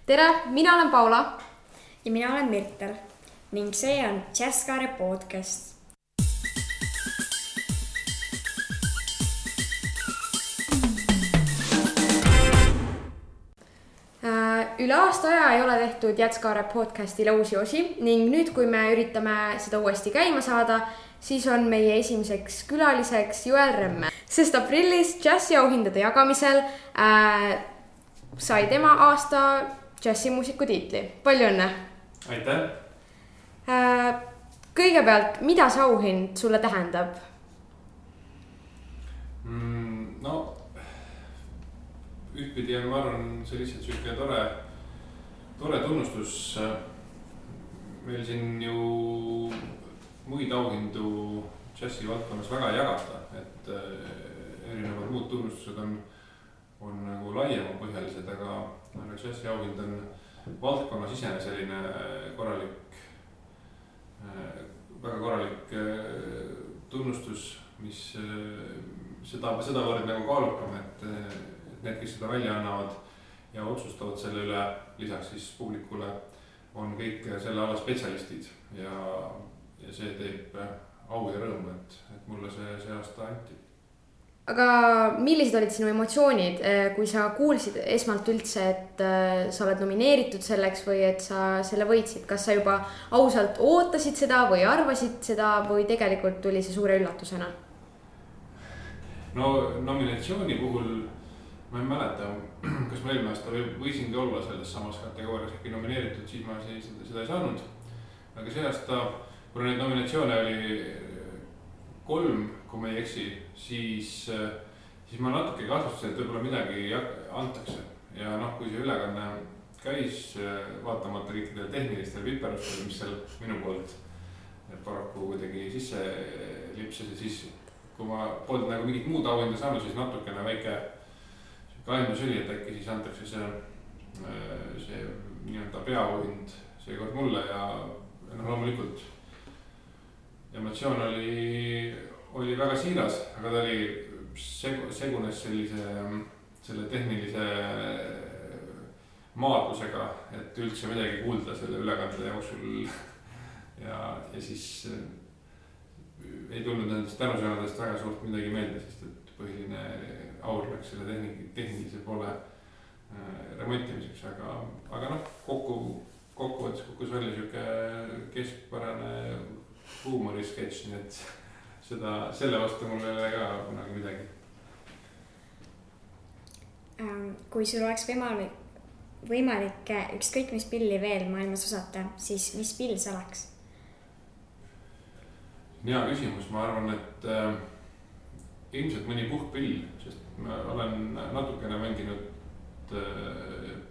Tere, mina olen Paula. Ja mina olen Mirtel ning see on Jazzkaare podcast. Üle aasta aja ei ole tehtud Jazzkaare podcastile uusi osi ning nüüd, kui me üritame seda uuesti käima saada, siis on meie esimeseks külaliseks Joel Remme, sest aprillis džässiauhindade jagamisel sai tema aasta džässimuusiku tiitli. Palju õnne! Aitäh! Kõigepealt, mida see auhind sulle tähendab? No, ühtpidi on, ma arvan, see lihtsalt selline tore tunnustus. Meil siin ju muid auhindu džässi valdkonnas väga ei jagata, et erinevad muud tunnustused on nagu laiema põhjalised, aga džässi auhind on valdkonnas isene selline väga korralik tunnustus, mis sedavõrd nagu kaalukam, et need, kes seda välja annavad ja otsustavad selle üle, lisaks siis publikule, on kõik selle ala spetsialistid ja see teeb au ja rõõmu, et mulle see aasta anti. Aga millised olid sinu emotsioonid, kui sa kuulsid esmalt üldse, et sa oled nomineeritud selleks või et sa selle võitsid? Kas sa juba ausalt ootasid seda või arvasid seda või tegelikult tuli see suure üllatusena? No nominatsiooni puhul ma ei mäleta, kas ma eelmine aasta võisingi olla selles samas kategoorias äkki nomineeritud, siis ma seda ei saanud. Aga see aasta, kui neid nominatsioone oli 3, kui ma ei eksi, siis ma natuke kahtlustasin, et võib-olla midagi antakse. Ja kui see ülekanne käis, vaatamata kõikidele tehnilistele viperustele, mis seal minu poolt paraku kuidagi sisse lipsas ja siis, kui ma polnud nagu mingit muud auhinda saanud, siis natukene väike kahendus oli, et äkki siis antakse see nii-öelda peaauhind seekord mulle ja loomulikult emotsioon oli väga siiras, aga ta oli segunes selle tehnilise maadlusega, et üldse midagi kuulda selle ülekande jooksul ja siis ei tulnud nendest tänusõnadest väga suurt midagi meelde, sest et põhiline aur läks selle tehnilise poole remontimiseks, aga kokkuvõttes kukkus välja siuke keskpärane huumorisketš, nii et selle vastu mul ei ole ka kunagi midagi. Kui sul oleks võimalik ükskõik mis pilli veel maailmas osata, siis mis pill see oleks? Hea küsimus, ma arvan, et ilmselt mõni puhkpill, sest ma olen natukene mänginud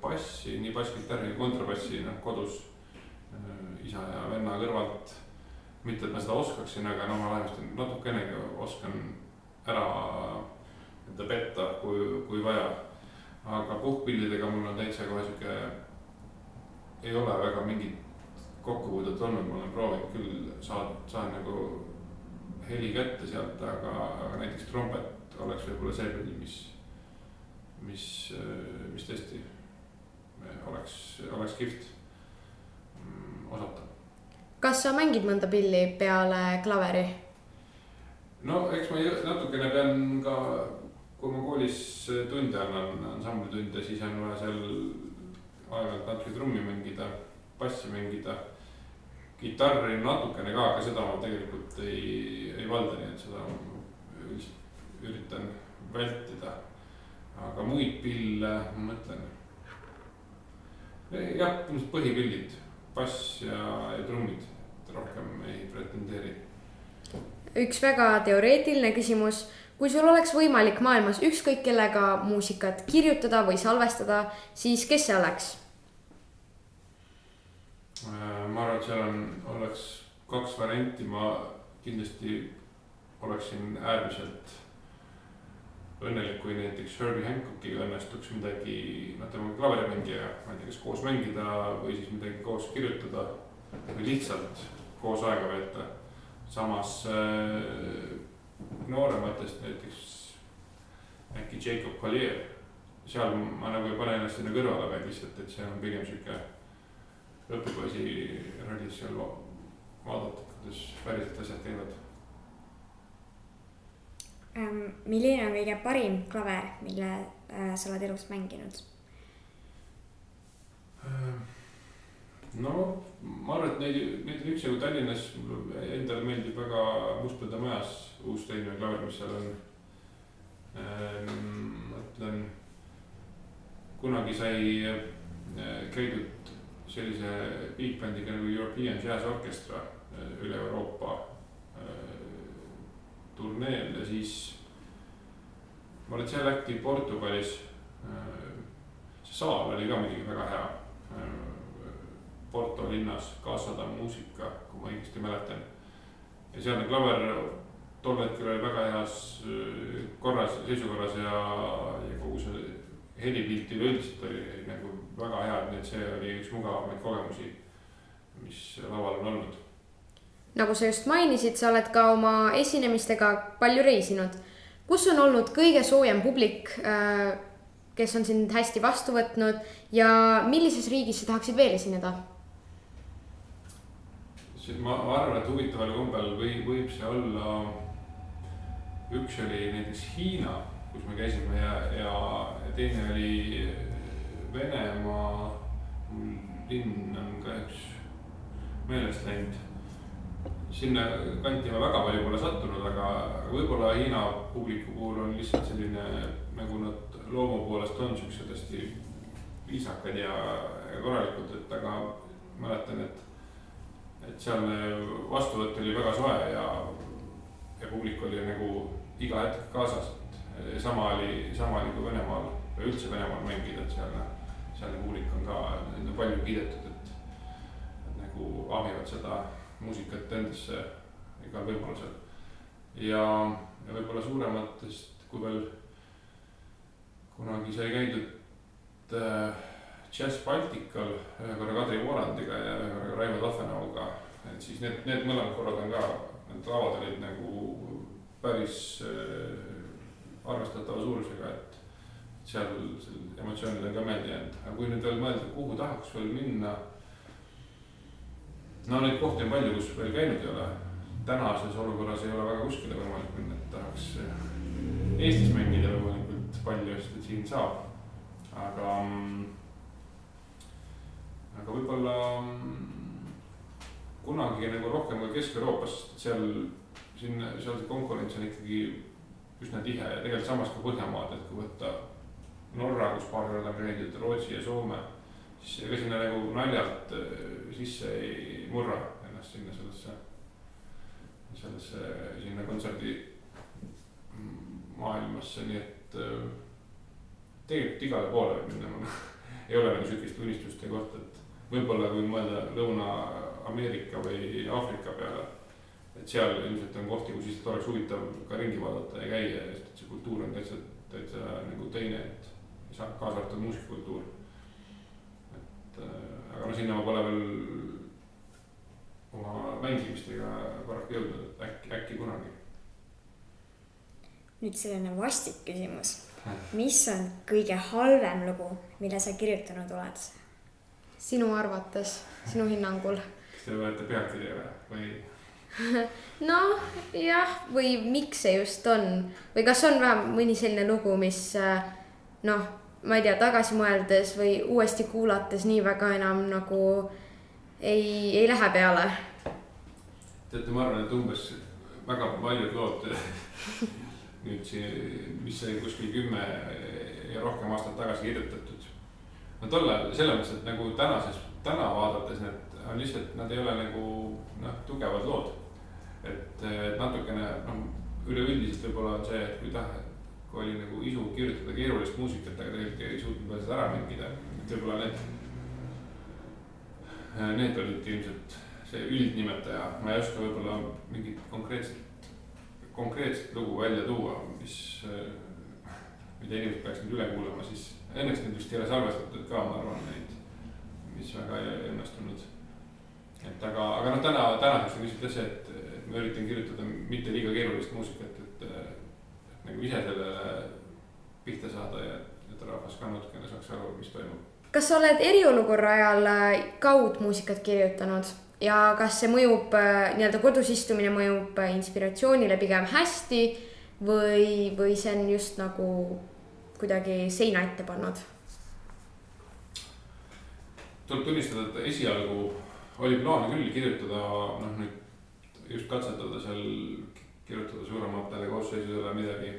bassi, nii basskitarri kui kontrabassi kodus isa ja venna kõrvalt. Mitte, et ma seda oskaksin, aga ma vähemasti natukenegi oskan ära petta, kui vaja. Aga puhkpillidega mul on täitsa kohe siuke, ei ole väga mingit kokkupuudet olnud, ma olen proovinud küll saan nagu heli kätte sealt, aga näiteks trompet oleks võib-olla see pill, mis tõesti oleks kihvt osata. Kas sa mängid mõnda pilli peale klaveri? No eks ma natukene pean ka, kui ma koolis tunde annan ansamblitunde, siis on vaja seal aeg-ajalt natuke trummi mängida, bassi mängida, gitarri natukene ka, aga seda ma tegelikult ei valda, nii et seda üritan vältida. Aga muid pille, ma mõtlen, jah, põhipillid, bass ja trummid, rohkem ei pretendeeri. Üks väga teoreetiline küsimus. Kui sul oleks võimalik maailmas ükskõik kellega muusikat kirjutada või salvestada, siis kes see oleks? Ma arvan, et seal oleks 2 varianti. Ma kindlasti oleksin äärmiselt õnnelik, kui näiteks Herbie Hancockiga õnnestuks midagi, tema klaverimängija, ma ei tea, kas koos mängida või siis midagi koos kirjutada või lihtsalt koos aega veeta. Samas noorematest näiteks äkki Jacob Collier, seal ma nagu ei pane ennast sinna kõrvale, vaid lihtsalt, et see on pigem siuke õpipoisi rollis seal vaadata, kuidas päriselt asjad käivad. Milline on kõige parim klaver, mille sa oled elus mänginud? No ma arvan, et neid on üksjagu Tallinnas. Endale meeldib väga Mustpõlda majas uus teine klaver, mis seal on. Mõtlen, kunagi sai käidud sellise big bandiga nagu European Jazz Orchestra üle Euroopa turneel ja siis ma olin seal äkki Portugalis. See saal oli ka muidugi väga hea. Porto linnas Casa muusika, kui ma õigesti mäletan. Ja sealne klaver tol hetkel oli väga heas seisukorras ja kogu see helipilti üldiselt oli nagu väga hea, nii et see oli üks mugavamaid kogemusi, mis laval on olnud. Nagu sa just mainisid, sa oled ka oma esinemistega palju reisinud. Kus on olnud kõige soojem publik, kes on sind hästi vastu võtnud ja millises riigis sa tahaksid veel esineda? Ma arvan, et huvitaval kombel võib see olla, üks oli näiteks Hiina, kus me käisime ja teine oli Venemaa, linn on ka üks meelest läinud. Sinna kanti ma väga palju pole sattunud, aga võib-olla Hiina publiku puhul on lihtsalt selline, nagu nad loomu poolest on siuksed hästi viisakad ja korralikud, et aga mäletan, et sealne vastuvõtt oli väga soe ja publik oli nagu iga hetk kaasas. Sama oli kui Venemaal või üldse Venemaal mängida, et sealne publik on ka palju kiidetud, et nagu ahmivad seda muusikat endasse igal võimalusel. Ja võib-olla suurematest, kui veel kunagi sai käidud Jazz Baltical ühe korra Kadri Vorandiga ja ühe korra Raivo Tafenauga, et siis need mõlemad korrad on ka, need lavad olid nagu päris arvestatava suurusega, et seal emotsioonid on ka meeldi jäänud. Aga kui nüüd veel mõelda, kuhu tahaks veel minna, no neid kohti on palju, kus veel käinud ei ole. Tänases olukorras ei ole väga kuskile võimalik minna, et tahaks Eestis mängida võimalikult palju, sest et siin saab. Aga võib-olla kunagi nagu rohkem ka Kesk-Euroopas, seal see konkurents on ikkagi üsna tihe ja tegelikult samas ka Põhjamaad, et kui võtta Norra, kus paar korda on käidud, Rootsi ja Soome, siis ega sinna nagu naljalt sisse ei murra ennast sinna kontserdi maailmasse, nii et tegelikult igale poole võib minna. Ei ole nagu sükist unistuste kohta, et võib-olla kui mõelda Lõuna-Ameerika või Aafrika peale, et seal ilmselt on kohti, kus lihtsalt oleks huvitav ka ringi vaadata ja käia, sest et see kultuur on täitsa nagu teine, et kaasa arvatud muusikakultuur. Aga no sinna ma pole veel oma mängimistega paraku jõudnud, et äkki kunagi. Nüüd selline vastik küsimus. Mis on kõige halvem lugu, mille sa kirjutanud oled? Sinu arvates, sinu hinnangul? Kas te võete pealkirja või? No jah, või miks see just on? Või kas on vähem mõni selline lugu, mis ma ei tea, tagasi mõeldes või uuesti kuulates nii väga enam nagu ei lähe peale? Teate, ma arvan, et umbes väga paljud lood nüüd mis sai kuskil 10 ja rohkem aastat tagasi kirjutatud. No tollal selles mõttes, et nagu täna vaadates need on lihtsalt, nad ei ole nagu tugevad lood. Et natukene üleüldiselt võib-olla on see, et kui oli nagu isu kirjutada keerulist muusikat, aga tegelikult ei suutnud veel seda ära mängida. Et võib-olla need olid ilmselt see üldnimetaja. Ma ei oska võib-olla mingit konkreetset lugu välja tuua, mida inimesed peaks nüüd üle kuulama, siis õnneks need vist ei ole salvestatud ka, ma arvan neid, mis väga ei õnnestunud. Aga tänaseks on lihtsalt see, et ma üritan kirjutada mitte liiga keerulist muusikat, et nagu ise sellele pihta saada ja et rahvas ka natukene saaks aru, mis toimub. Kas sa oled eriolukorra ajal kaudmuusikat kirjutanud ja kas see mõjub, nii-öelda kodus istumine mõjub inspiratsioonile pigem hästi või see on just nagu kuidagi seina ette pannud? Tuleb tunnistada, et esialgu oli plaan küll kirjutada, nüüd just katsetada seal, kirjutada suurematele koosseisudele midagi.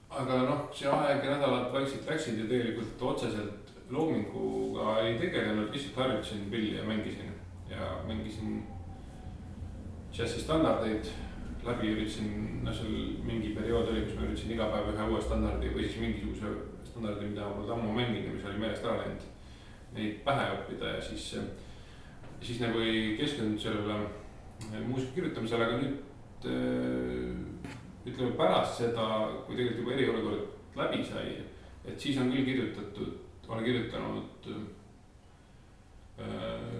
Aga see aeg ja nädalad vaikselt läksid ja tegelikult otseselt loominguga ei tegelenud, lihtsalt harjutasin pilli ja mängisin džässi standardeid läbi, üritasin, seal mingi periood oli, kus ma üritasin iga päev ühe uue standardi või siis mingisuguse standardi, mida ma polnud ammu mänginud ja mis oli meelest ära läinud, neid pähe õppida ja siis nagu ei keskendunud sellele muusika kirjutamisele, aga nüüd ütleme pärast seda, kui tegelikult juba eriolukord läbi sai, et siis on küll olen kirjutanud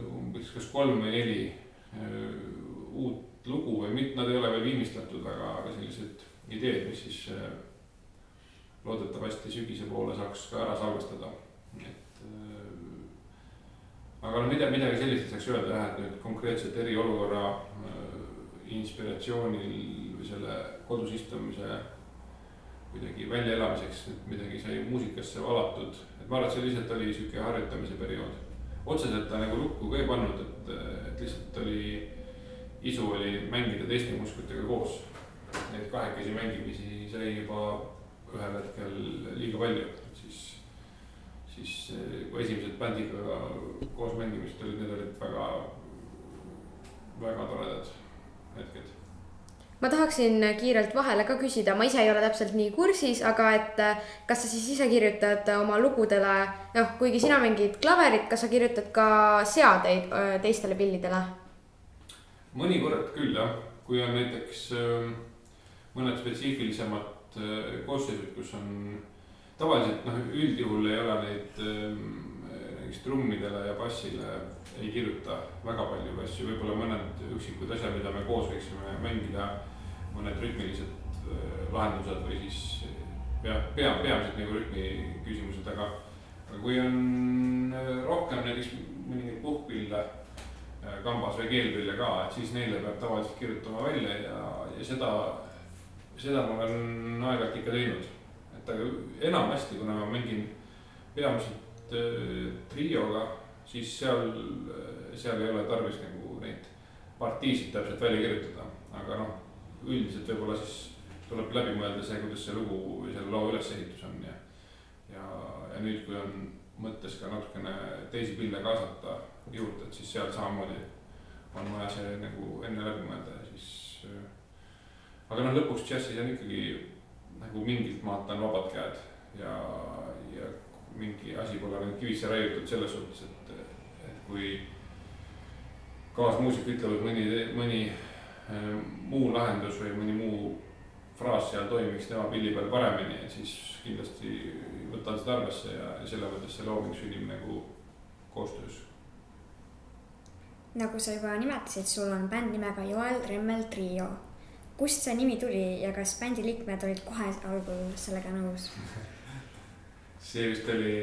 umbes kas 3 või 4 uut lugu või mitte, nad ei ole veel viimistlatud, aga sellised ideed, mis siis loodetavasti sügise poole saaks ka ära salvestada. Aga midagi sellist saaks öelda jah, et nüüd konkreetselt eriolukorra inspiratsioonil või selle kodus istumise kuidagi välja elamiseks midagi sai muusikasse valatud. Et ma arvan, et see lihtsalt oli siuke harjutamise periood. Otseselt ta nagu lukku ka ei pannud, et lihtsalt isu oli mängida teiste muusikutega koos. Neid kahekesi mängimisi sai juba ühel hetkel liiga palju, siis kui esimesed bändiga koos mängimist olid, need olid väga, väga toredad hetked. Ma tahaksin kiirelt vahele ka küsida, ma ise ei ole täpselt nii kursis, aga et kas sa siis ise kirjutad oma lugudele, kuigi sina mängid klaverit, kas sa kirjutad ka seadeid teistele pillidele? Mõnikord küll jah, kui on näiteks mõned spetsiifilisemad koosseisud, kus on tavaliselt üldjuhul ei ole neid näiteks trummidele ja bassile ei kirjuta väga palju asju, võib-olla mõned üksikud asjad, mida me koos võiksime mängida, mõned rütmilised lahendused või siis peamiselt nagu rütmi küsimused, aga kui on rohkem näiteks mõningaid puhkpille kambas või keelpille ka, et siis neile peab tavaliselt kirjutama välja ja seda ma olen aeg-ajalt ikka teinud. Et aga enamasti, kuna ma mängin peamiselt trioga, siis seal ei ole tarvis nagu neid partiisid täpselt välja kirjutada. Aga üldiselt võib-olla siis tuleb läbi mõelda see, kuidas see lugu või selle loo ülesehitus on ja nüüd, kui on mõttes ka natukene teisi pille kaasata juurde, et siis seal samamoodi on vaja see nagu enne läbi mõelda ja siis aga lõpuks džässis on ikkagi nagu mingilt maalt on vabad käed ja mingi asi pole nüüd kivisse raiutud selles suhtes, et kui kaasmuusik ütlevad mõni muu lahendus või mõni muu fraas seal toimiks tema pilli peal paremini, siis kindlasti võtan seda arvesse ja selle mõttes see looming sünnib nagu koostöös. Nagu sa juba nimetasid, sul on bänd nimega Joel Remmel Trio. Kust see nimi tuli ja kas bändi liikmed olid kohe algul sellega nõus? See vist oli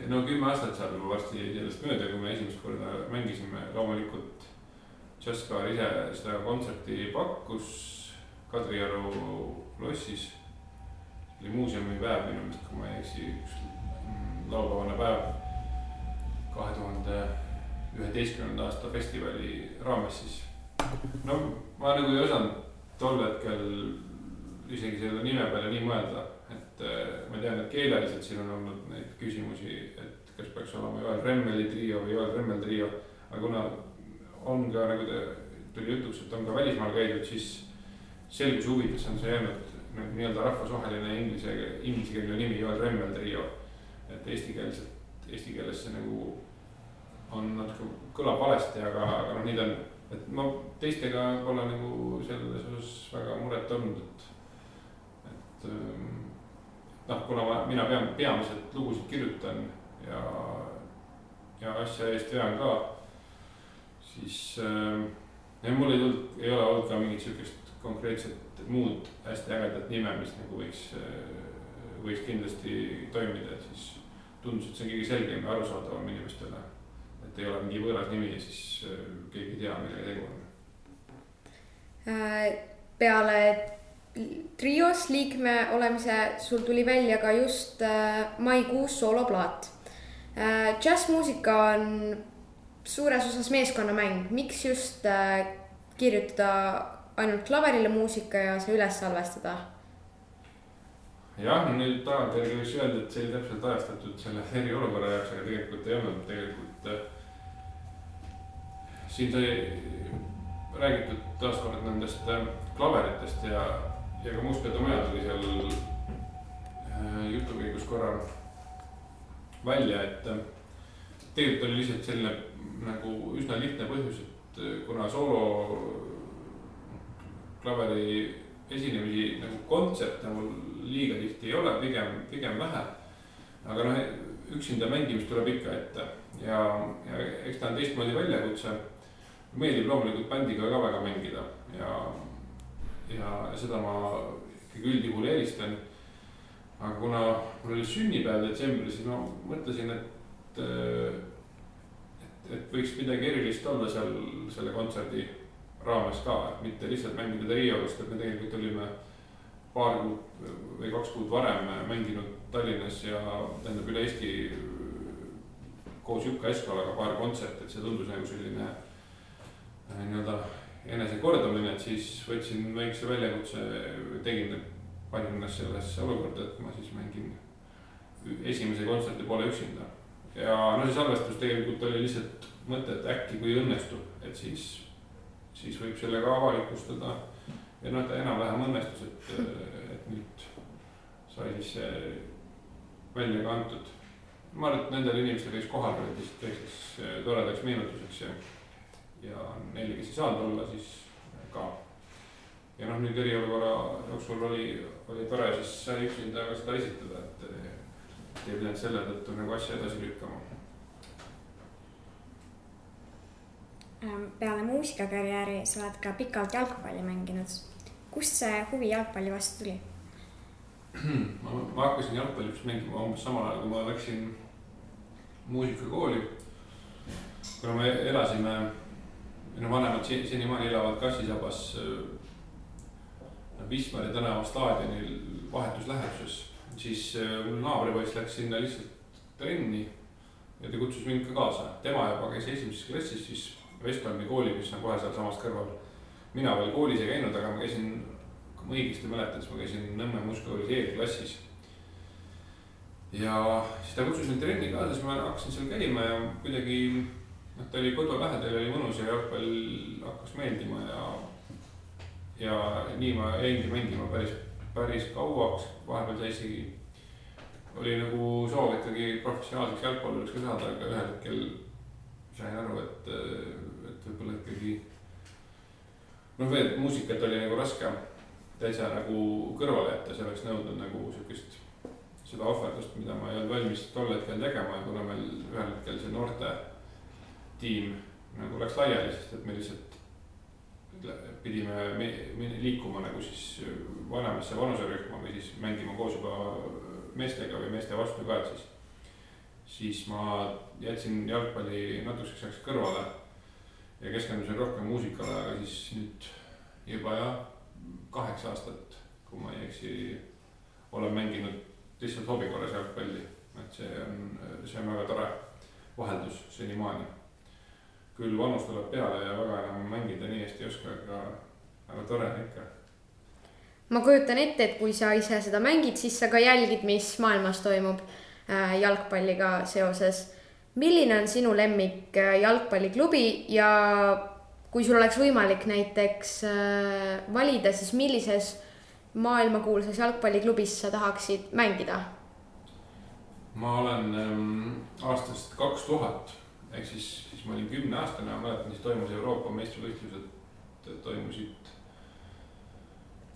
10 aastat saab juba varsti sellest mööda, kui me esimest korda mängisime. Loomulikult Jazzkaar ise seda kontserti pakkus Kadrioru lossis. See oli muuseumi päev minu meelest, kui ma ei eksi, üks laupäevane päev 2011. aasta festivali raames siis. Ma nagu ei osanud tol hetkel isegi selle nime peale nii mõelda, et ma tean, et keeleliselt siin on olnud neid küsimusi, et kas peaks olema Joel Remmeli trio või Joel Remmel trio, aga kuna on ka, nagu tuli jutuks, et on ka välismaal käidud, siis selguse huvides on see jäänud nagu nii-öelda rahvusvaheline ingliskeelne nimi Joel Remmel trio, et eesti keeles see nagu on natuke kõlab valesti, aga nii ta on. Et ma teistega pole nagu selles osas väga muret olnud, et kuna mina peamiselt lugusid kirjutan ja asja eest vean ka, siis mul ei ole olnud ka mingit sükest konkreetset muud hästi ägedat nime, mis nagu võiks kindlasti toimida, et siis tundus, et see on kõige selgem ja arusaadavam inimestele. Et ei ole mingi võõras nimi ja siis keegi ei tea, millega tegu on. Peale trios liikme olemise sul tuli välja ka just maikuus sooloplaat. Džässmuusika on suures osas meeskonnamäng. Miks just kirjutada ainult klaverile muusika ja see üles salvestada? Jah, nüüd tagantjärgi võiks öelda, et see oli täpselt ajastatud selle eriolukorra jaoks, aga tegelikult ei olnud. Tegelikult siin sai räägitud taaskord nendest klaveritest ja ka Mustpeatomajad oli seal jutukäigus korra välja, et tegelikult oli lihtsalt selline nagu üsna lihtne põhjus, et kuna soolo klaveri esinemisi nagu kontserte mul liiga tihti ei ole, pigem vähe. Aga üksinda mängimist tuleb ikka ette ja eks ta on teistmoodi väljakutse. Meeldib loomulikult bändiga ka väga mängida ja seda ma ikkagi üldjuhul eelistan. Aga kuna mul oli sünnipäev detsembris, siis ma mõtlesin, et võiks midagi erilist olla seal selle kontserdi raames ka, et mitte lihtsalt mängida Riiolust, et me tegelikult olime paar kuud või 2 kuud varem mänginud Tallinnas ja tähendab üle Eesti koos Jukka Eskolaga paar kontserti, et see tundus nagu selline nii-öelda enesekordamine, et siis võtsin väikse väljakutse, panin ennast sellesse olukorda, et ma siis mängin esimese kontserti poole üksinda. Ja see salvestus tegelikult oli lihtsalt mõte, et äkki kui õnnestub, et siis võib sellega avalikustada ja ta enam-vähem õnnestus, et nüüd sai siis see välja kantud. Ma arvan, et nendel inimestel, kes kohal olid, teiseks toredaks meenutuseks ja neile, kes ei saanud olla, siis ka. Ja nüüd eriolukorra jooksul oli tore siis sai üksinda ka seda esitada, et ei pidanud selle tõttu nagu asja edasi lükkama. Peale muusikakarjääri sa oled ka pikalt jalgpalli mänginud. Kust see huvi jalgpalli vastu tuli? Ma hakkasin jalgpalli mängima umbes samal ajal, kui ma läksin muusikakooli. Kuna me elasime, vanemad senimaani elavad Kassisabas Wismari tänava staadionil vahetuslähetuses, siis mul naabripoiss läks sinna lihtsalt trenni ja ta kutsus mind ka kaasa. Tema juba käis esimeses klassis siis Vestholmi kooli, mis on kohe seal samas kõrval. Mina veel koolis ei käinud, aga ma käisin, kui ma õigesti mäletades, ma käisin Nõmme muusikakoolis E-klassis. Ja siis ta kutsus mind trenni kaasa, siis ma hakkasin seal käima ja kuidagi ta oli kodu lähedal, oli mõnus ja jalgpall hakkas meeldima ja nii ma jäingi mängima päris kauaks. Vahepeal oli nagu soov ikkagi professionaalseks jalgpalluriks ka saada, aga ühel hetkel sain aru, et võib-olla ikkagi muusikat oli nagu raske täitsa nagu kõrvale jätta, see oleks nõudnud nagu sellist seda ohverdust, mida ma ei olnud valmis tol hetkel tegema ja kuna meil ühel hetkel see noorte tiim nagu läks laiali, sest et me lihtsalt pidime liikuma nagu siis vanemasse vanuserühma või siis mängima koos juba meestega või meeste vastu ka, et siis ma jätsin jalgpalli natukeseks ajaks kõrvale ja keskendusin rohkem muusikale, aga siis nüüd juba 8 aastat, kui ma ei eksi, olen mänginud lihtsalt hobi korras jalgpalli, et see on väga tore vaheldus senimaani. Küll vanus tuleb peale ja väga enam mängida nii hästi ei oska, aga tore ikka. Ma kujutan ette, et kui sa ise seda mängid, siis sa ka jälgid, mis maailmas toimub jalgpalliga seoses. Milline on sinu lemmik jalgpalliklubi ja kui sul oleks võimalik näiteks valida, siis millises maailmakuulsas jalgpalliklubis sa tahaksid mängida? Ma olen aastast 2000, ehk siis ma olin 10-aastane ja mäletan, siis toimus Euroopa meistrivõistlused, toimusid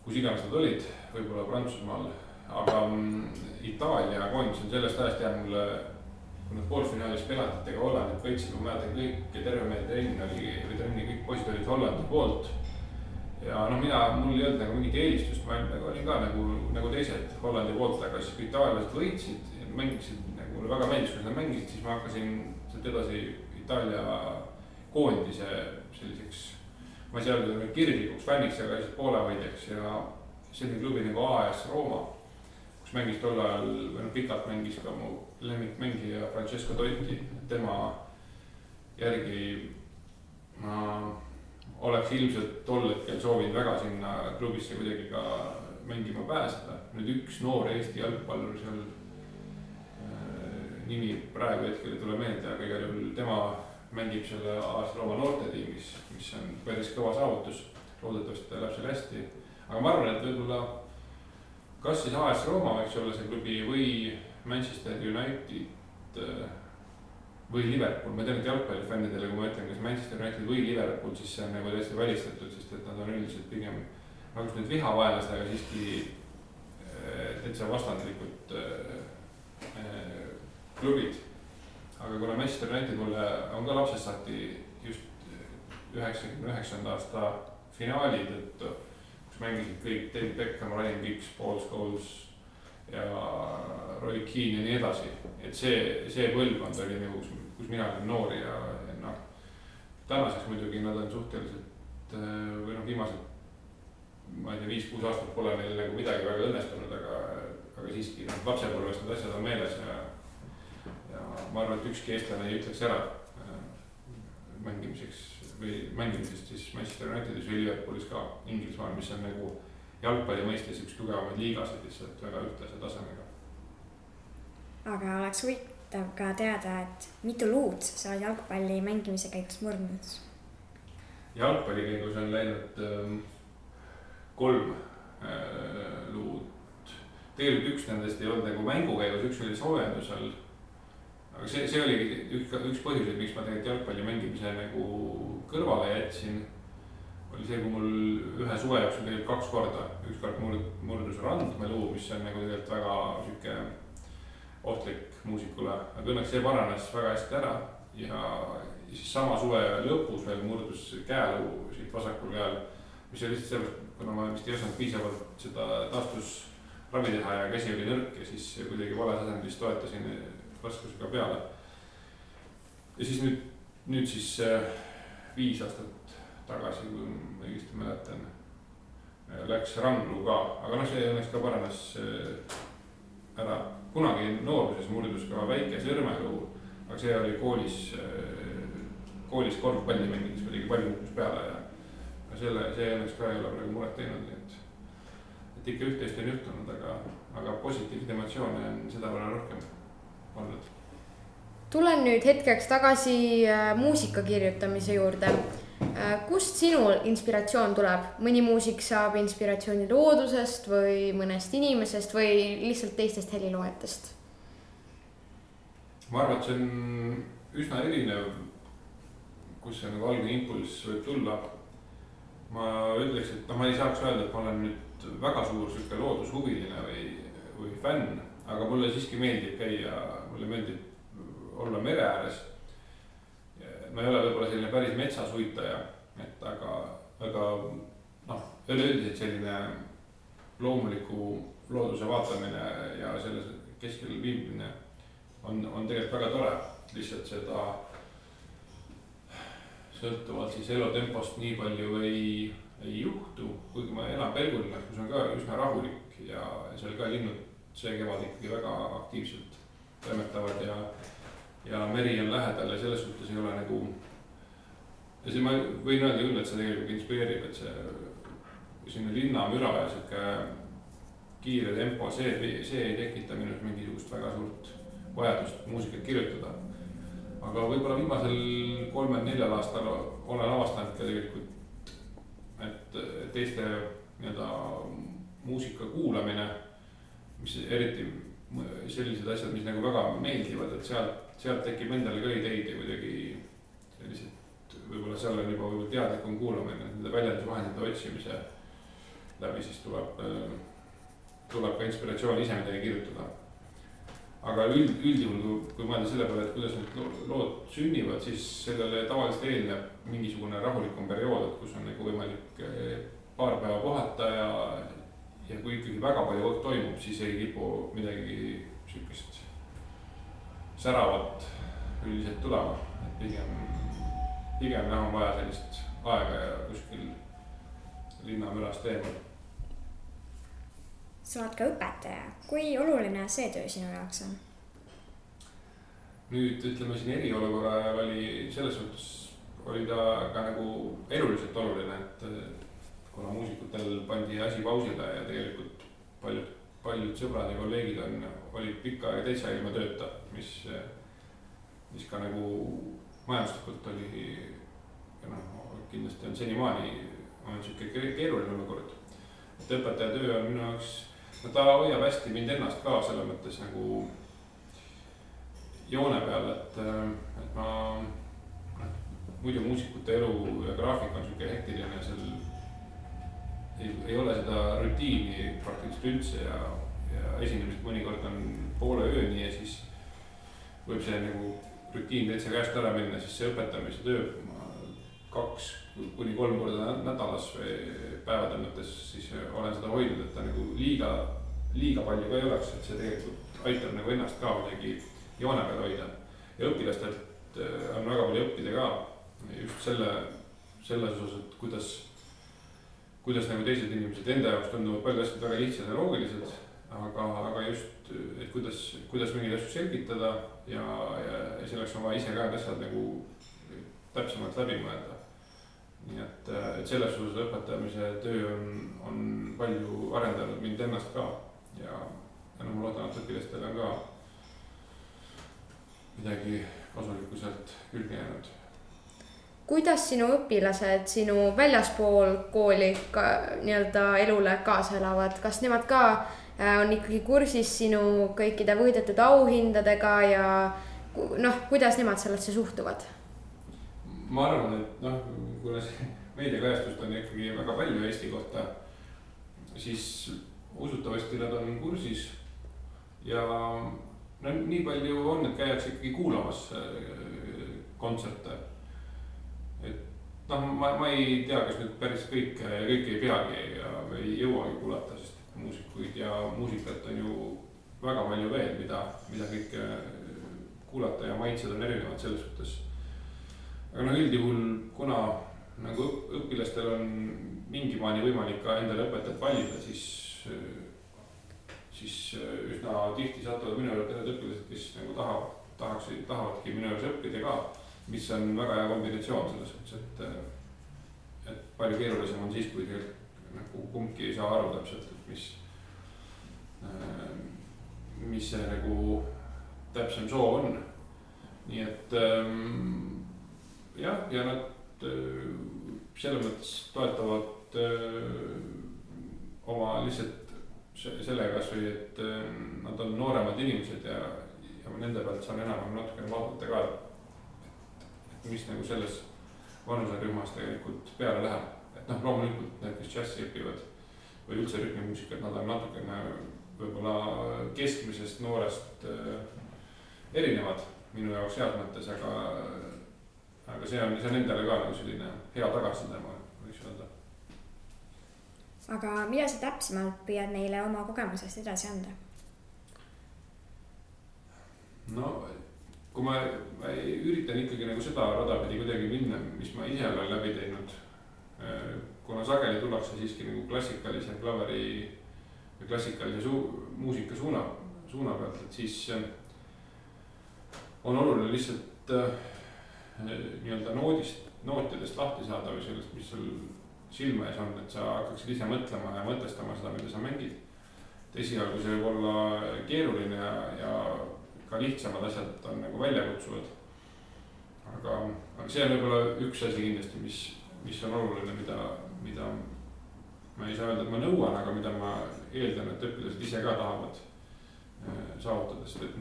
kus iganes nad olid, võib-olla Prantsusmaal, aga Itaalia koondis on sellest ajast jäänud mulle, kui nad poolfinaalis penaltitega Hollandit võitsid, ma mäletan kõik ja terve meie trenni kõik poisid olid Hollandi poolt ja no mul ei olnud nagu mingit eelistust, ma nagu olin ka nagu teised Hollandi poolt, aga siis kui itaallased võitsid, mängisid nagu mulle väga meeldis, kui nad mängisid, siis ma hakkasin sealt edasi Itaalia koondise selliseks, ma ei saa öelda kirglikuks fänniks, aga lihtsalt poolehoidjaks ja selline klubi nagu AS Rooma, kus mängis tol ajal, või pikalt mängis ka mu lemmikmängija Francesco Totti, tema järgi ma oleks ilmselt tol hetkel soovinud väga sinna klubisse kuidagi ka mängima pääseda. Nüüd üks noor Eesti jalgpallur seal, nimi praegu hetkel ei tule meelde, aga igal juhul tema mängib selle AS Rooma noortetiimis, mis on päris kõva saavutus. Loodetavasti ta läheb seal hästi. Aga ma arvan, et võib-olla kas siis AS Rooma võiks olla see klubi või Manchester United või Liverpool. Ma tean, et jalgpallifännidele, kui ma ütlen, kas Manchester United või Liverpool, siis see on nagu täiesti välistatud, sest et nad on üldiselt pigem nagu nüüd vihavaenlastega siiski täitsa vastandlikud klubid. Aga kuna Manchester United mulle on ka lapsest saati just 99. aasta finaali tõttu, kus mängisid kõik David Beckham, Ryan Giggs, Paul Scholes ja Roy Keane ja nii edasi. Et see põlvkond oli nagu, kus mina olin noor ja noh, tänaseks muidugi nad on suhteliselt või noh, viimased, ma ei tea, 5-6 aastat pole neil nagu midagi väga õnnestunud, aga siiski lapsepõlvest need asjad on meeles ja ma arvan, et ükski eestlane ei ütleks ära mängimisest siis Manchester Unitedis või Liverpoolis ka Inglismaal, mis on nagu jalgpalli mõistes üks tugevamaid liigasid lihtsalt väga ühtlase tasemega. Aga oleks huvitav ka teada, et mitu luud sa oled jalgpalli mängimise käigus murdnud? Jalgpalli käigus on läinud 3 luud. Tegelikult üks nendest ei olnud nagu mängu käigus, üks oli soojendusel. Aga see oli üks põhjus, miks ma tegelikult jalgpalli mängimise nagu kõrvale jätsin. Oli see, kui mul ühe suve jooksul tegelikult 2 korda. Üks kord murdus randmeluu, mis on nagu tegelikult väga süke ohtlik muusikule. Aga õnneks see paranes väga hästi ära ja siis sama suve lõpus veel murdus käeluu siit vasakul käel, mis oli lihtsalt sellest, kuna ma vist ei osanud piisavalt seda taastusravi teha ja käsi oli nõrk ja siis kuidagi vales asendis toetasin raskusega peale. Ja siis nüüd siis 5 aastat tagasi, kui ma õigesti mäletan, läks randluu ka, aga noh, see õnneks ka paranes ära. Kunagi nooruses murdus ka väike sõrmeluu, aga see oli koolis korvpalli mängides kuidagi palju kukkus peale ja see õnneks ka ei ole praegu muret teinud, et ikka üht-teist on juhtunud, aga positiivseid emotsioone on seda võrra rohkem olnud. Tulen nüüd hetkeks tagasi muusika kirjutamise juurde. Kust sinul inspiratsioon tuleb? Mõni muusik saab inspiratsiooni loodusest või mõnest inimesest või lihtsalt teistest heliloojatest? Ma arvan, et see on üsna erinev, kus see nagu algne impulss võib tulla. Ma ütleks, et ma ei saaks öelda, et ma olen nüüd väga suur loodushuviline või fänn, aga mulle siiski meeldib käia, mulle meeldib olla mere ääres. Ma ei ole võib-olla selline päris metsasuitaja, aga noh, üleüldiselt selline loomuliku looduse vaatamine ja selles keskel viibimine on tegelikult väga tore. Lihtsalt seda sõltuvalt siis elutempost nii palju ei juhtu, kuigi ma elan Pelgulinnas, kus on ka üsna rahulik ja seal ka linnud see kevad ikkagi väga aktiivselt toimetavad ja meri on lähedal ja selles suhtes ei ole nagu. Ja see ma võin öelda küll, et see tegelikult inspireerib, et see sinna linnamüra ja siuke kiire tempo, see ei tekita minust mingisugust väga suurt vajadust muusikat kirjutada. Aga võib-olla viimasel 3-4 aastal olen avastanud ka tegelikult, et teiste muusika kuulamine, mis eriti sellised asjad, mis nagu väga meeldivad, et sealt tekib endale ka ideid ja kuidagi sellised, võib-olla seal on juba teadlikum kuulamine, nende väljendusvahendite otsimise läbi siis tuleb ka inspiratsioon ise midagi kirjutada. Aga üldjuhul, kui mõelda selle peale, et kuidas need lood sünnivad, siis sellele tavaliselt eelneb mingisugune rahulikum periood, kus on nagu võimalik paar päeva puhata ja kui ikkagi väga palju toimub, siis ei kipu midagi sihukest säravat üldiselt tulema, et pigem on vaja sellist aega ja kuskil linnamülast eemal. sa oled ka õpetaja, kui oluline see töö sinu jaoks on? Nüüd ütleme siin eriolukorra ajal oli selles suhtes oli ta ka nagu eluliselt oluline, et kuna muusikutel pandi asi pausile ja tegelikult paljud sõbrad ja kolleegid olid pikka aega täitsa ilma tööta, mis ka nagu majanduslikult oli ja kindlasti on senimaani on siuke keeruline olukord. Et õpetaja töö on minu jaoks, ta hoiab hästi mind ennast ka selles mõttes nagu joone peal, et ma muidu muusikute elu ja graafik on siuke hektiline ja seal ei ole seda rutiini praktiliselt üldse ja esinemised mõnikord on poole ööni ja siis võib see nagu rutiin täitsa käest ära minna, siis see õpetamise töö 2 kuni 3 korda nädalas või päevade mõttes siis olen seda hoidnud, et ta nagu liiga palju ka ei oleks, et see tegelikult aitab nagu ennast ka midagi joone peal hoida ja õpilastelt on väga palju õppida ka just selles osas, et kuidas nagu teised inimesed enda jaoks tunduvad palju asjad väga lihtsad ja loogilised, aga just, et kuidas mingeid asju selgitada ja selleks on vaja ise ka asjad nagu täpsemalt läbi mõelda. Nii et selles osas õpetamise töö on palju arendanud mind ennast ka ja ma loodan, et õpilastel on ka midagi kasulikku sealt külge jäänud. Kuidas sinu õpilased sinu väljaspool kooli ka nii-öelda elule kaasa elavad? Kas nemad ka on ikkagi kursis sinu kõikide võidetud auhindadega ja kuidas nemad sellesse suhtuvad? Ma arvan, et kuna see meediakajastust on ikkagi väga palju Eesti kohta, siis usutavasti nad on kursis ja nii palju on, et käiakse ikkagi kuulamas kontserte. Et ma ei tea, kas nüüd päris kõike ei peagi ja ei jõuagi kuulata, sest muusikuid ja muusikat on ju väga palju veel, mida kõike kuulata ja maitsed on erinevad selles suhtes. Aga üldjuhul, kuna nagu õpilastel on mingi maani võimalik ka endale õpetajat valida, siis üsna tihti satuvad minu juurde need õpilased, kes nagu tahavadki minu juures õppida ka, mis on väga hea kombinatsioon selles suhtes, et palju keerulisem on siis, kui nagu kumbki ei saa aru täpselt, et mis see nagu täpsem soov on. Nii et jah, ja nad selles mõttes toetavad oma lihtsalt sellega, et nad on nooremad inimesed ja nende pealt saan enam natukene vaadata ka, mis nagu selles vanuserühmas tegelikult peale läheb. Et loomulikult need, kes džässi õpivad või üldse rütmimuusikat, nad on natukene võib-olla keskmisest noorest erinevad minu jaoks heas mõttes, aga see on endale ka nagu selline hea tagasiside, ma võiks öelda. Aga mida sa täpsemalt püüad neile oma kogemusest edasi anda? Kui ma üritan ikkagi nagu seda radapidi kuidagi minna, mis ma ise olen läbi teinud, kuna sageli tullakse siiski nagu klassikalise klaveri või klassikalise muusika suuna pealt, et siis on oluline lihtsalt nii-öelda nootidest lahti saada või sellest, mis sul silma ees on, et sa hakkaksid ise mõtlema ja mõtestama seda, mida sa mängid. Esialgu see võib olla keeruline ja ka lihtsamad asjad on nagu väljakutsuvad. Aga see on võib-olla üks asi kindlasti, mis on oluline, mida ma ei saa öelda, et ma nõuan, aga mida ma eeldan, et õpilased ise ka tahavad saavutada, sest et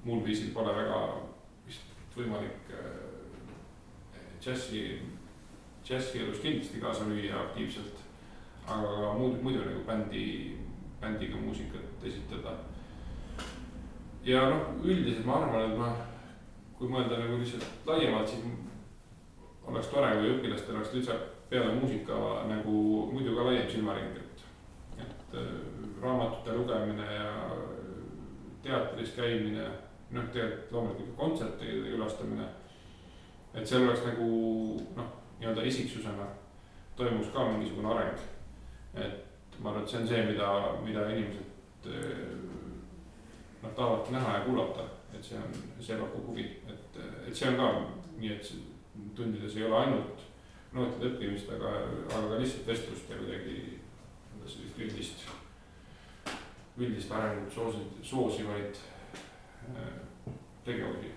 muul viisil pole väga vist võimalik džässi elus kindlasti kaasa lüüa aktiivselt, aga muidu nagu bändiga muusikat esitada. Ja üldiselt ma arvan, et kui mõelda nagu lihtsalt laiemalt, siis oleks tore, kui õpilastel oleks peale muusika nagu muidu ka laiem silmaring, et raamatute lugemine ja teatris käimine, tegelikult loomulikult kontsertide külastamine, et seal oleks nagu nii-öelda isiksusena toimus ka mingisugune areng. Et ma arvan, et see on see, mida inimesed tahavad näha ja kuulata, et see pakub huvi, et see on ka nii, et tundides ei ole ainult nootide õppimist, aga ka lihtsalt vestlust ja kuidagi sellist üldist arengut soosivaid tegevusi.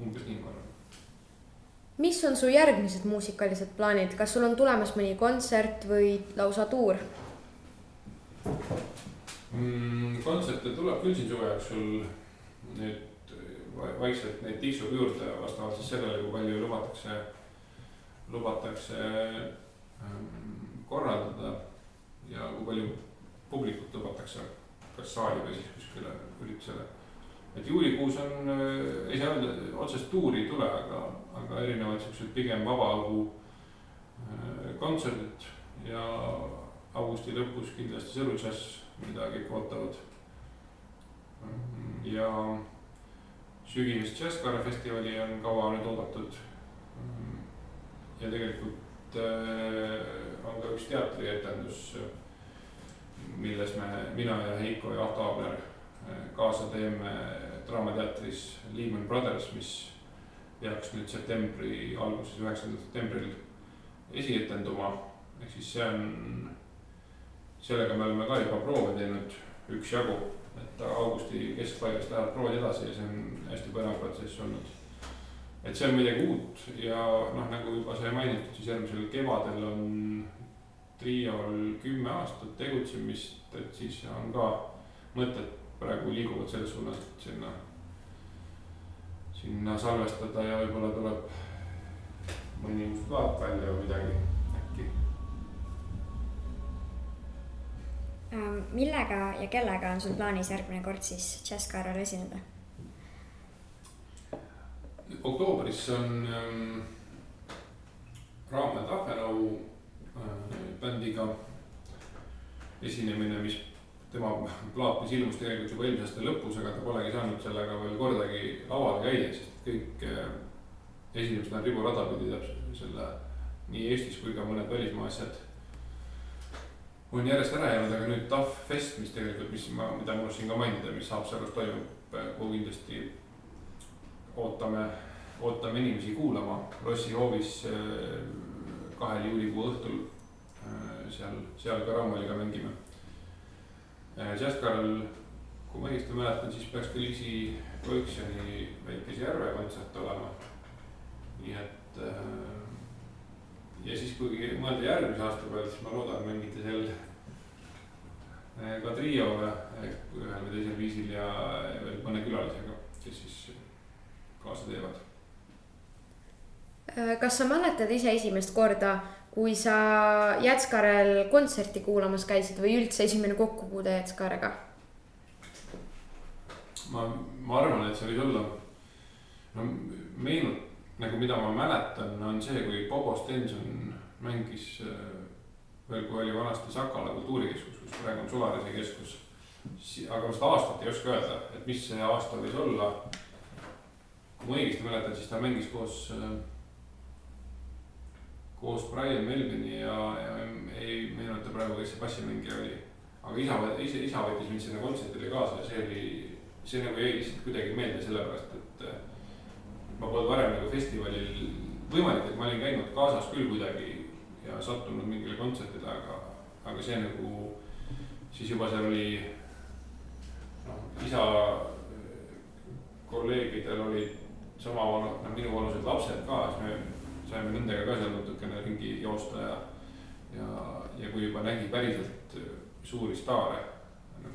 Umbes nii ma arvan. Mis on su järgmised muusikalised plaanid? Kas sul on tulemas mõni kontsert või lausa tuur? Kontserte tuleb küll siin suve jooksul nüüd vaikselt neid tiksub juurde vastavalt siis sellele, kui palju lubatakse korraldada ja kui palju publikut lubatakse kas saali või siis kuskile üritusele. Et juulikuus on, ei saa öelda, otsest tuuri ei tule, aga erinevad sellised pigem vabaõhu kontserdid ja augusti lõpus kindlasti Sõru Jazz, mida kõik ootavad. Ja sügisest Jazzkaare festivali on kaua nüüd oodatud. Ja tegelikult on ka üks teatrietendus, milles mina ja Heiko ja Ahto Aabler kaasa teeme Draamateatris Lehman Brothers, mis peaks nüüd septembri alguses 9. septembril esietenduma. Ehk siis sellega me oleme ka juba proove teinud üksjagu, et augusti keskpaigast lähevad proovid edasi ja see on hästi põnev protsess olnud. Et see on midagi uut ja nagu juba sai mainitud, siis järgmisel kevadel on triol 10 aastat tegutsemist, et siis on ka mõtted praegu liiguvad selles suunas, et sinna salvestada ja võib-olla tuleb mõni uus plaat välja või midagi äkki. Millega ja kellega on sul plaanis järgmine kord siis Jazzkaarel esineda? Oktoobris on Raamat Ahvenau bändiga esinemine, mis tema plaat, mis ilmus tegelikult juba eelmise aasta lõpus, aga ta polegi saanud sellega veel kordagi lavale käia, sest kõik esinemised on riburada pidi selle nii Eestis kui ka mõned välismaa asjad on järjest ära jäänud, aga nüüd TAF Fest, mis tegelikult, mida ma siin ka mainida, mis Haapsalus toimub, kuhu kindlasti ootame inimesi kuulama Lossi hoovis 2. juulikuu õhtul, seal ka Raamaliga mängime. Jazzkaarel, kui ma õigesti mäletan, siis peaks ka Liisi Koiksjoni Väikese Järve kontsert olema. Nii et ja siis kui mõelda järgmise aasta peale, siis ma loodan mängida seal ka triole ühel või teisel viisil ja veel mõne külalisega, kes siis kaasa teevad. Kas sa mäletad ise esimest korda, kui sa Jazzkaarel kontserti kuulamas käisid või üldse esimene kokkupuude Jazzkaarega? Ma arvan, et see võis olla meenut, nagu mida ma mäletan, on see, kui Bobo Stenson mängis veel, kui oli vanasti Sakala kultuurikeskus, kus praegu on Solarise keskus. Aga ma seda aastat ei oska öelda, et mis see aasta võis olla. Kui ma õigesti mäletan, siis ta mängis koos Brian Melvini ja ei meenuta praegu, kes see bassimängija oli. Aga isa võttis mind sinna kontsertile kaasa ja see nagu jäi lihtsalt kuidagi meelde sellepärast, et ma polnud varem nagu festivalil võimalik, et ma olin käinud kaasas küll kuidagi ja sattunud mingile kontsertile, aga see nagu siis juba seal oli isa kolleegidel olid sama minu vanused lapsed ka, siis me saime nendega ka seal natukene ringi joosta ja kui juba nägi päriselt suuri staare,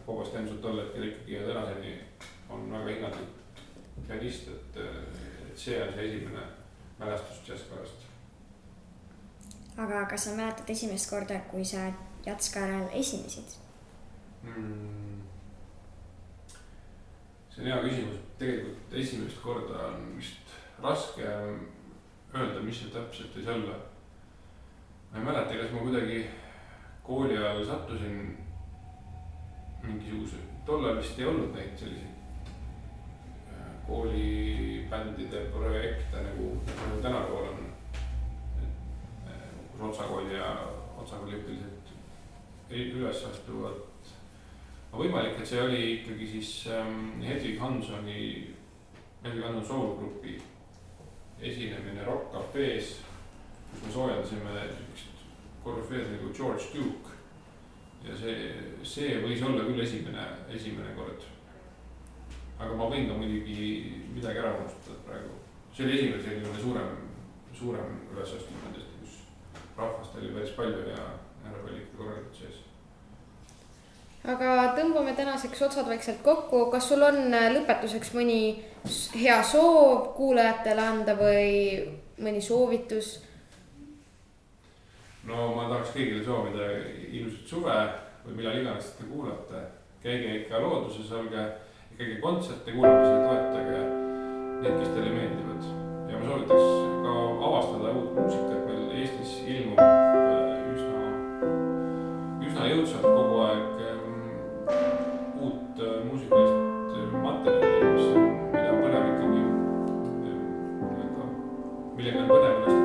Bobo Stenson tol hetkel ikkagi ja tänaseni on väga hinnatud pianist, et see on see esimene mälestus Jazzkaarast. Aga kas sa mäletad esimest korda, kui sa Jazzkaarel esinesid? See on hea küsimus. Tegelikult esimest korda on vist raske öelda, mis see täpselt võis olla. ma ei mäleta, kas ma kuidagi kooli ajal sattusin mingisuguse, tollal vist ei olnud neid selliseid koolibändide projekte nagu tänapäeval on. Kus Otsakooli ja Otsakooli ühteliselt üles astuvad. Võimalik, et see oli ikkagi siis Hedvig Hansoni soolgrupi esinemine Rock Cafe's, kus me soojendasime korüfeed nagu George Duke. Ja see võis olla küll esimene kord. Aga ma võin ka muidugi midagi ära unustada praegu. See oli esimene selline suurem ülesastumine nendest, kus rahvast oli päris palju ja härra oli ikka korralikult sees. Aga tõmbame tänaseks otsad vaikselt kokku. Kas sul on lõpetuseks mõni hea soov kuulajatele anda või mõni soovitus? No ma tahaks kõigile soovida ilusat suve või millal iganes te kuulate. Käige ikka looduses, olge ikkagi kontserte kuulamisel, toetage need, kes teile meeldivad. Ja ma soovitaks ka avastada uut muusikat. Meil Eestis ilmub üsna jõudsalt kogu aeg uut muusikalist materjali, mida on põnev ikkagi, millega on põnev